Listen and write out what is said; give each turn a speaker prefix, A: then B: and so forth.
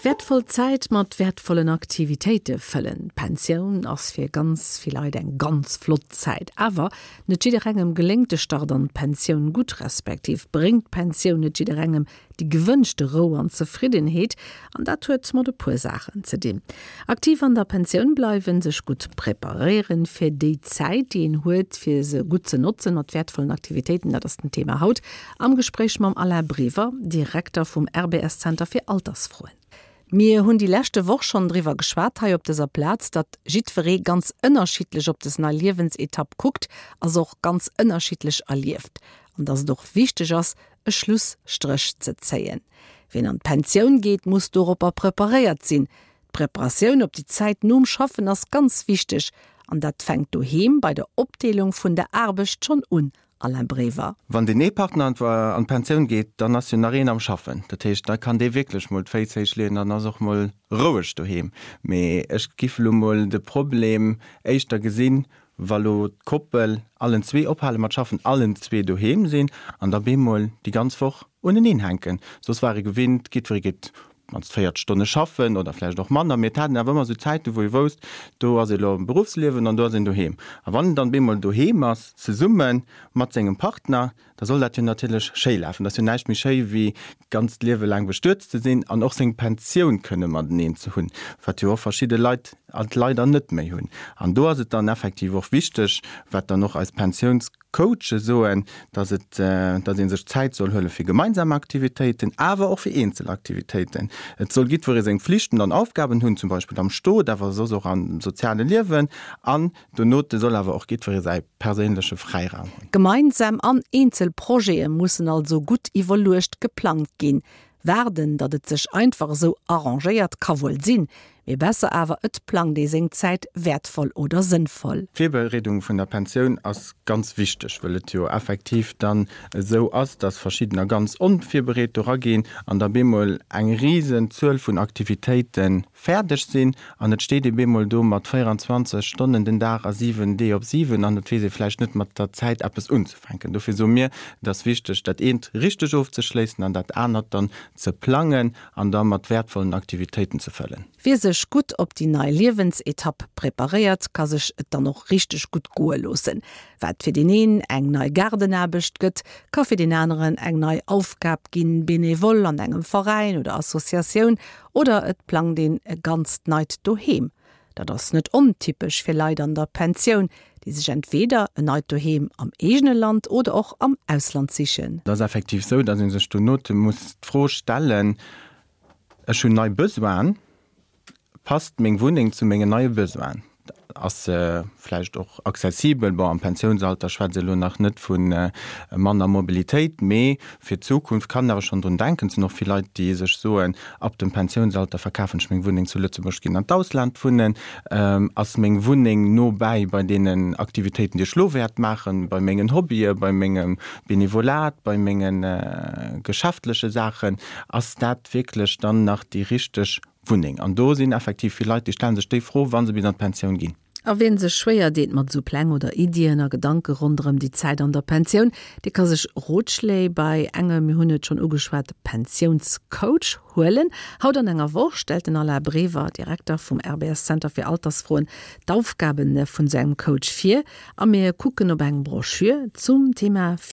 A: Wäertvoll Zäit mat wäertvollen Aktivitéite fëllen. D'Pensioun ass fir ganz vill Leit eng ganz flott Zäit. Awer net jidderengem geléngt de Start an d'Pensioun gutt, respektiv bréngt d'Pensioun net jidderengem déi gewënschte Rou an Zefriddenheet. An dat huet mat e puer Saachen ze dinn. Aktiv an der Pensioun bleiwen, sech gutt preparéieren fir déi Zäit, déi een huet, fir se gutt ze notzen mat wäertvollen Aktivitéiten, dat ass den Thema haut Am Gespréich mam Alain Brever, Direkter vum RBS Zenter fir Altersfroen. Mir hunn déi leschte Woch schonn driwwer geschwat hei op dëser Plaz, datt jiddweree ganz ënnerschiddlech op des nei Liewensetapp kuckt a se och ganz ënnerschiddlech erlieft. An datt et och wichteg ass, e Schlusstréch ze zéien. Wien an d'Pensioun geet, muss doropper preparéiert sinn. D'Preparatioun op déi Zäit nom Schaffen ass ganz wichteg an dat fänkt doheem bei der Opdeelung vun der Aarbecht schonn un, Alain Brever.
B: Wann deen ee Partner an d'Pensioun geet, dann ass jo nach een am Schaffen. Dat heescht, da kann dee wierklech mol d'Féiss héich leeën, dann ass och mol roueg doheem. Mee ech giff elo mol de Problem éischter gesinn, wa lo d'Koppel allen zwee ophale mat schaffen, allen zwee doheem sinn an da bemol déi ganz Woch uneneen hänken. Soss war ee gewinnt, jiddweree geet mannst 40 Stonne schaffen oder vläicht och manner, mee et hat een awer ëmmer esou Zäiten, wou ee wousst, do ass ee lo am Beruffsliewen an do ass een doheem. A wann een dann bemol doheem ass, zesumme mat sengem Partner, da soll dat jo natierlech schéi lafen. Et ass jo näischt méi schéi wéi d'ganzt Liewe laang bestuet ze sinn an och seng Pensioun kënne mateneen ze hunn, wat jo och verschidde Leit alt leider net méi hunn. An do ass et dann effektiv och wichteg, wat dann och eis Pensiouns. Coache soen, dass et, dass ee sech Zäit soll huele fir gemeinsam Aktivitéiten, awer och fir eenzel Aktivitéiten. Et soll jiddweree seng Flichten an Aufgaben hunn, zum Beispill am Stot, awer soss och am soziale Liewen. An donote soll awer och jiddweree säi perséinleche Fräiraum hunn.
A: Gemeinsam an eenzel Projete mussen also gutt iwwerluecht geplangt ginn. Waarden, datt et sech einfach esou arrangéiert, ka wuel sinn, mee besser awer et plangt ee seng Zäit wäertvoll oder sënnvoll.
B: D'Virbereedung vun der Pensioun ass ganz wichteg, wëll et jo effektiv dann esou ass, datt verschiddener ganz onvirbereet do raginn an da bemol eng risen Zuel vun Aktivitéite fäerdeg sinn an et steet ee bemol do mat 24 Stonnen den Dag a 7 Dee op 7 an et weess ee vläicht net mat der Zäit eppes unzefänken. Fänken. Dofir soe mir, et ass wichteg, dat eent richteg ofzeschléissen an dat anert dann ze plangen an da mat wäertvollen Aktivitéiten ze fëllen.
A: Wie sech gutt op déi nei Liewensetapp preparéiert, ka sech et dann och richteg gutt goe loossen. Wat fir deen een eng nei Gaardenaarbecht gëtt, ka fir deen aneren eng nei Aufgab ginn, Benevole an engem Veräin oder Associatioun oder et plangt een e ganzt neit Doheem. Dat ass net ontypesch fir Leit an der Pensioun, déi sech entweeder en neit Doheem am eegene Land oder och am Ausland sichen.
B: Et ass effektiv sou, datt ee sech donote muss d'Fro stellen, Ech hunn nei Besoinen, passt meng Wunneng zu mengen neie Besoinen? Ass se vläicht och accessibel? Bon, am Pensiounsalter schwätze elo nach net vu manner Mobilitéit, mee fir d'Zukunft kann een awer schonn drun denken. Et sinn och vill Leit, déi sech soen, Ab dem Pensiounsalter verkafen ech meng Wunneng zu Lëtzebuerg, ginn an d'Ausland wunnen. Ass meng Wunneng no bäi bei deenen Aktivitéiten, déi ech elo wäert maachen, bei mengen Hobbye, bei mengem Benevolat, bei menge geschäftleche Saachen? Ass dat wierklech dann nach déi richteg Wunneng? An do sinn effektiv vill Leit, déi stelle sech déi Fro, wa se bis an d'Pensioun ginn.
A: A wien sech schwéier deet mat esou Pläng oder Iddien a Gedanke ronderëm déi Zäit an der Pensioun, dee ka sech Rotschléi bei engem, mir hunn et schonn ugeschwat, Pensiounscoach huelen. Haut an enger Woch stellt den Alain Brever, Direkter vum RBS Zenter fir Altersfroen, d'Aufgabe vun esou engem Coach vir a mir kucken op eng Broschür zum Thema.